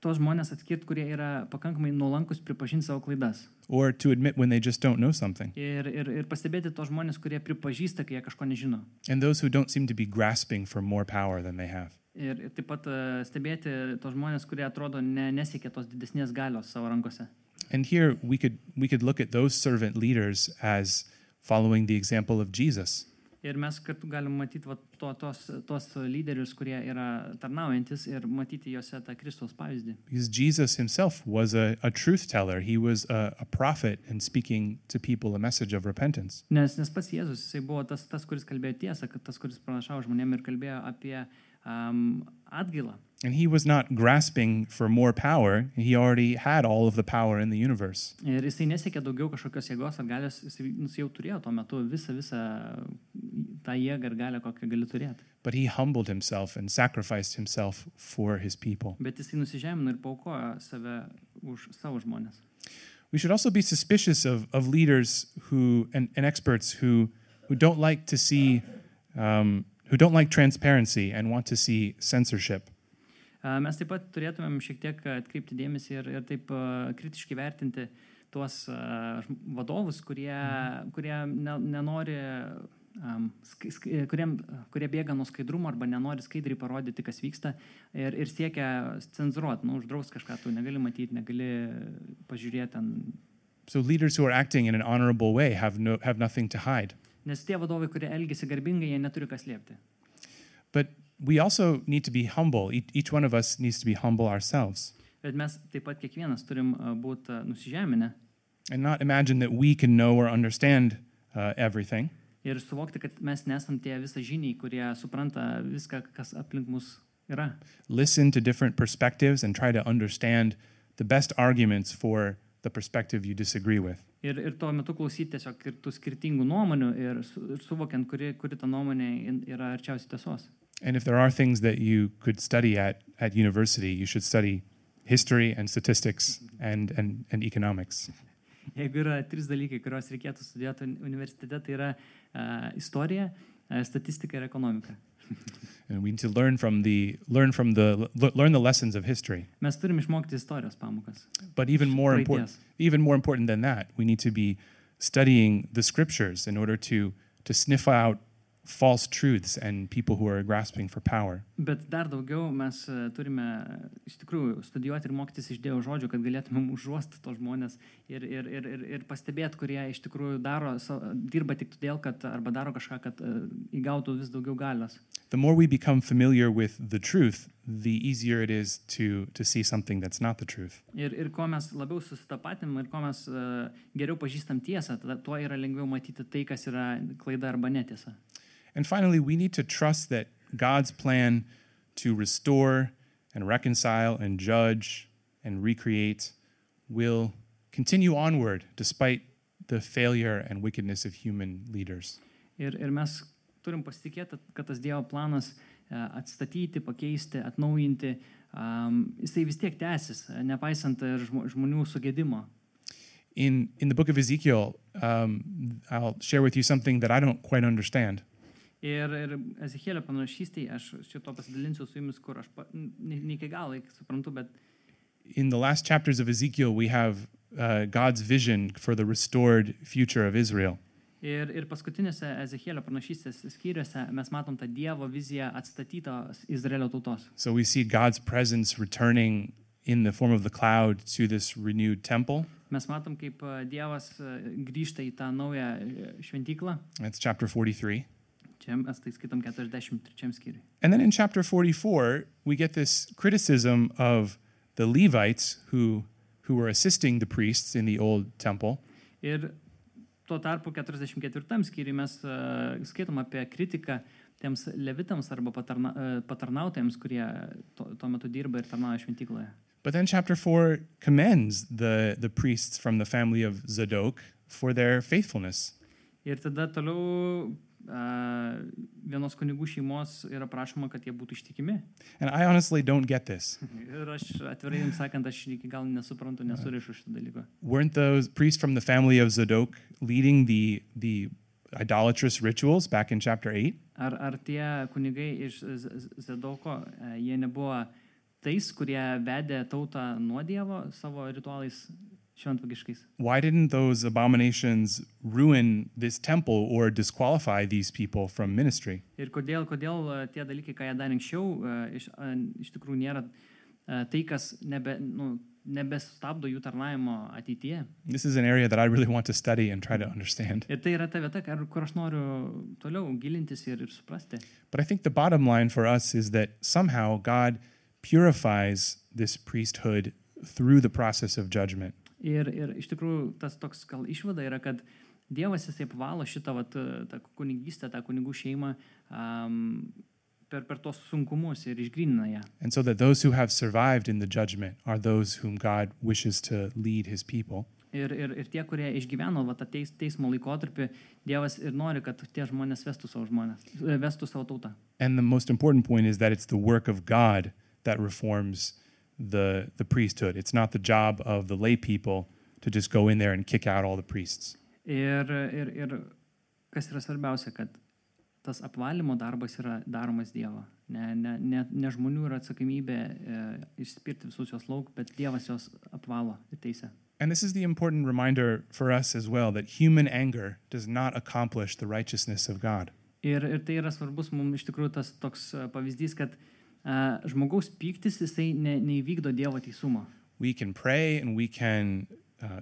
tos žmonės atskirti, kurie yra pakankamai nuolankus pripažinti savo klaidas. Or to admit when they just don't know something. Ir pastebėti tos žmonės, kurie pripažįsta, kai jie kažko nežino. And those who don't seem to be grasping for more power than they have. Ir taip pat stebėti tos žmonės, kurie atrodo nesiekia tos didesnės galios savo rankose. And here we could look at those servant leaders as following the example of Jesus. Ir mes kartu galim matyti tos lyderius, kurie yra tarnaujantis ir matyti juose tą Kristaus pavyzdį. Because Jesus himself was a truth teller. He was a prophet and speaking to people a message of repentance. Nes pats Jėzus, jisai buvo tas, kuris kalbėjo tiesą, kad tas, kuris pranašavo žmonėm ir kalbėjo apie atgailą. And he was not grasping for more power. He already had all of the power in the universe. Ir jisai nesiekė daugiau kažkokios jėgos ar galios, jisai jau turėjo tuo metu visą tą jėgą ir galią, kokią gali turėti. But he humbled himself and sacrificed himself for his people. Bet jisai nusižemino ir paaukojo save už savo žmonės. We should also be suspicious of leaders and experts who don't like to see, who don't like transparency and want to see censorship. Mes taip pat turėtumėm šiek tiek atkreipti dėmesį ir taip kritiškai vertinti tuos vadovus, kurie nenori, kurie bėga nuo skaidrumo arba nenori skaidriai parodyti, kas vyksta ir siekia cenzuruoti, uždraus kažką, tu negali matyti, negali pažiūrėti ten. So leaders who are acting in an honorable way have nothing to hide. Nes tie vadovai, kurie elgiasi garbingai, jie neturi ką slėpti. But we also need to be humble. Each one of us needs to be humble ourselves. Bet mes taip pat kiekvienas turim būti nusižeminę. And not imagine that we can know or understand everything. Ir suvokti, kad mes nesam tie visažiniai, kurie supranta viską, kas aplink mus yra. Listen to different perspectives and try to understand the best arguments for the perspective you disagree with. Ir tuo metu klausyti tiesiog ir tų skirtingų nuomonių ir suvokiant, kuri ta nuomonė yra arčiausiai tiesos. And if there are things that you could study at university, you should study history and statistics and economics. Jeigu yra 3 dalykai, kuriuos reikėtų studijuoti universitete, tai yra istorija, statistika ir ekonomika. And we need to learn the lessons of history. Mes turim išmokti istorijos pamokas. But even more important than that, we need to be studying the scriptures in order to sniff out false truths and people who are grasping for power. Bet dar daugiau mes turime iš tikrųjų studijuoti ir mokytis iš Dievo žodžio, kad galėtumėm užuosti tos žmonės ir pastebėti, kurie iš tikrųjų dirba tik todėl, kad arba daro kažką, kad įgautų vis daugiau galios. The more we become familiar with the truth, the easier it is to see something that's not the truth. Ir kuo mes labiau susitapatinam ir kuo mes geriau pažįstam tiesą, tuo yra lengviau matyti tai, kas yra klaida arba netiesa. And finally, we need to trust that God's plan to restore and reconcile and judge and recreate will continue onward despite the failure and wickedness of human leaders. Ir mes turim pasitikėti, kad tas Dievo planas atstatyti, pakeisti, atnaujinti, jisai vis tiek tęsis, nepaisant ir žmonių sugedimo. In the book of Ezekiel, I'll share with you something that I don't quite understand. Ir Ezechielio pranašystėje aš šito pasidalinsiu su jumis, kur aš ne iki galo suprantu, bet in the last chapters of Ezekiel, we have God's vision for the restored future of Israel. Ir paskutinėse Ezechielio pranašystės skyriuose mes matom tą Dievo viziją atstatytos Izraelio tautos. So we see God's presence returning in the form of the cloud to this renewed temple. Mes matom, kaip Dievas grįžta į tą naują šventyklą. That's chapter 43. Čia mes tai skaitom 43 skyriui. And then in chapter 44, we get this criticism of the Levites who were assisting the priests in the old temple. Ir tuo tarpu 44 skyriui mes skaitom apie kritiką tiems levitams arba patarnautojams, kurie tuo metu dirba ir tarnauja šventykloje. But then chapter 4 commends the priests from the family of Zadok for their faithfulness. Ir tada toliau vienos kunigų šeimos yra prašoma, kad jie būtų ištikimi. And I honestly don't get this. Ir aš atvirai jums sakant, aš iki gal nesuprantu, nesurišu šitą dalyką. Weren't those priests from the family of Zadok leading the idolatrous rituals back in chapter 8? Ar tie kunigai iš Zadoko, jie nebuvo tais, kurie vedė tautą nuo Dievo savo ritualais šventvagiškais? Why didn't those abominations ruin this temple or disqualify these people from ministry? Ir kodėl tie dalykai, ką jie darė anksčiau, iš tikrųjų nėra tai, kas nebestabdo jų tarnavimo ateityje. This is an area that I really want to study and try to understand. Ir tai yra ta vieta, kur aš noriu toliau gilintis ir suprasti. But I think the bottom line for us is that somehow God purifies this priesthood through the process of judgment. Ir iš tikrųjų tas toks gal išvada yra, kad Dievas jisai apvalo šitą tą kunigystę, tą kunigų šeimą per tos sunkumus ir išgrynina ją. And so that those who have survived in the judgment are those whom God wishes to lead his people. Ir tie, kurie išgyveno tą teismo laikotarpį, Dievas ir nori, kad tie žmonės vestų savo tautą. And the most important point is that it's the work of God that reforms the priesthood. It's not the job of the lay people to just go in there and kick out all the priests. Ir kas yra svarbiausia, kad tas apvalymo darbas yra daromas Dievo. Ne žmonių yra atsakomybė išspirti visus jos lauk, bet Dievas jos apvalo ir teisė. And this is the important reminder for us as well, that human anger does not accomplish the righteousness of God. Ir tai yra svarbus mums iš tikrųjų tas toks pavyzdys, kad žmogaus pyktis jisai neįvykdo Dievo teisumą. We can pray and we can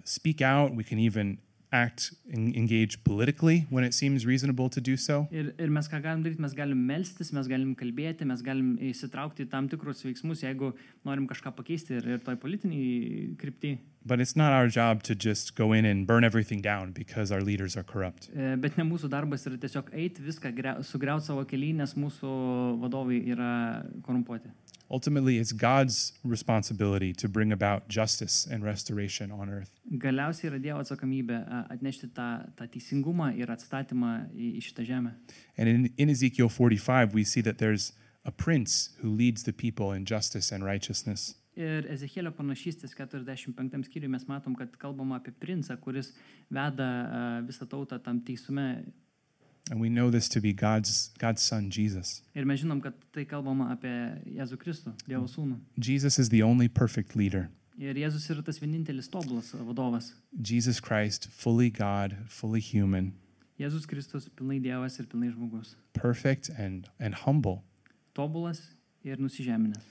speak out, we can even act and engage politically when it seems reasonable to do so. Ir mes ką galim daryti, mes galim melstis, mes galim kalbėti, mes galim įsitraukti į tam tikrus veiksmus, jeigu norim kažką pakeisti ir toj politiniai krypty. But it's not our job to just go in and burn everything down because our leaders are corrupt. Bet ne mūsų darbas yra tiesiog eiti viską sugriauti savo kely, nes mūsų vadovai yra korumpuoti. Ultimately, it's God's responsibility to bring about justice and restoration on earth. Galiausiai yra Dievo atsakomybė atnešti tą teisingumą ir atstatymą į šitą žemę. And in Ezekiel 45, we see that there's a prince who leads the people in justice and righteousness. Ir Ezechielio pranašystės 45 skyriuje mes matom, kad kalbama apie princą, kuris veda visą tautą tam teisume. And we know this to be God's son, Jesus. Ir mes žinom, kad tai kalbama apie Jėzų Kristų, Dievo sūnų. Jesus is the only perfect leader. Ir Jėzus yra tas vienintelis tobulas vadovas. Jesus Christ, fully God, fully human. Jėzus Kristus pilnai Dievas ir pilnai žmogus. perfect and humble, Tobulas ir nusižeminęs.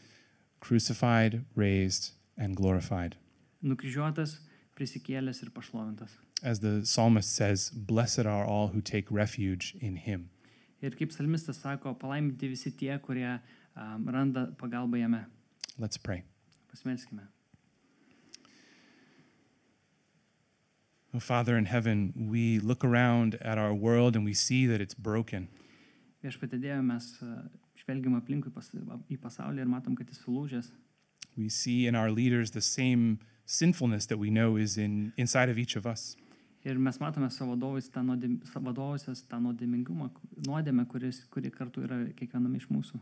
crucified, raised, and glorified. Nukryžiuotas, prisikėlęs ir pašlovintas. As the psalmist says, blessed are all who take refuge in him. Ir kaip psalmistas sako, palaiminti visi tie, kurie randa pagalbą jame. Let's pray. Pasimelskime. Oh, Father in heaven, we look around at our world and we see that it's broken. Viešpatie Dieve, mes žvelgiam aplinkui į pasaulį ir matom, kad jis sulūžęs. We see in our leaders the same sinfulness that we know is inside of each of us. Ir mes matome savo vadovusias tą nuodėmingumą, nuodėmę, kuri kartu yra kiekviename iš mūsų.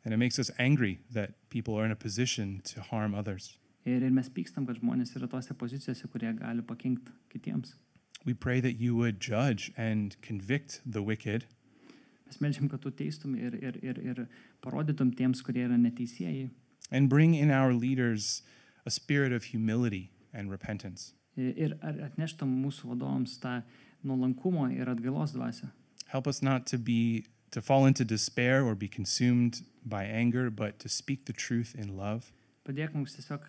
And it makes us angry that people are in a position to harm others. Ir mes pykstam, kad žmonės yra tose pozicijose, kurie gali pakenkti kitiems. We pray that you would judge and convict the wicked, Mes melžiam, kad tu teistum ir parodytum tiems, kurie yra neteisėjai. and bring in our leaders a spirit of humility and repentance. Ir atneštum mūsų vadovams tą nuolankumo ir atgailos dvasią. Help us not to fall into despair or be consumed by anger, but to speak the truth in love. Padėk mums tiesiog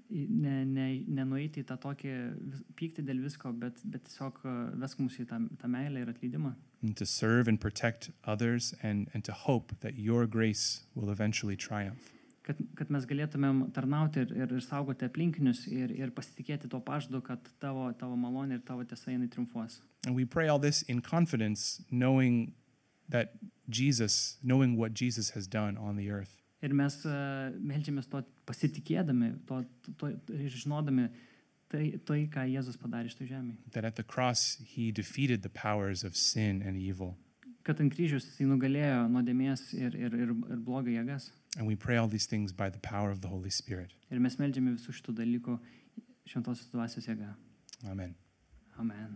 nenueiti į tą tokį pyktį dėl visko, bet tiesiog vesk mus į tą meilę ir atleidimą. And to serve and protect others and to hope that your grace will eventually triumph. Kad mes galėtumėm tarnauti ir saugoti aplinkinius ir pasitikėti tuo pažadu, kad tavo malonė ir tavo tiesa jinai triumfuos. And we pray all this in confidence, knowing what Jesus has done on the earth. Ir mes meldžiamės to pasitikėdami, ir žinodami tai, ką Jėzus padarė šitoj žemėje. That at the cross he defeated the powers of sin and evil. Kad ant kryžiaus jisai nugalėjo nuodėmės ir blogio jėgas. And we pray all these things by the power of the Holy Spirit. Ir mes meldžiame visų šitų dalykų šventosios dvasios jėga. Amen. Amen.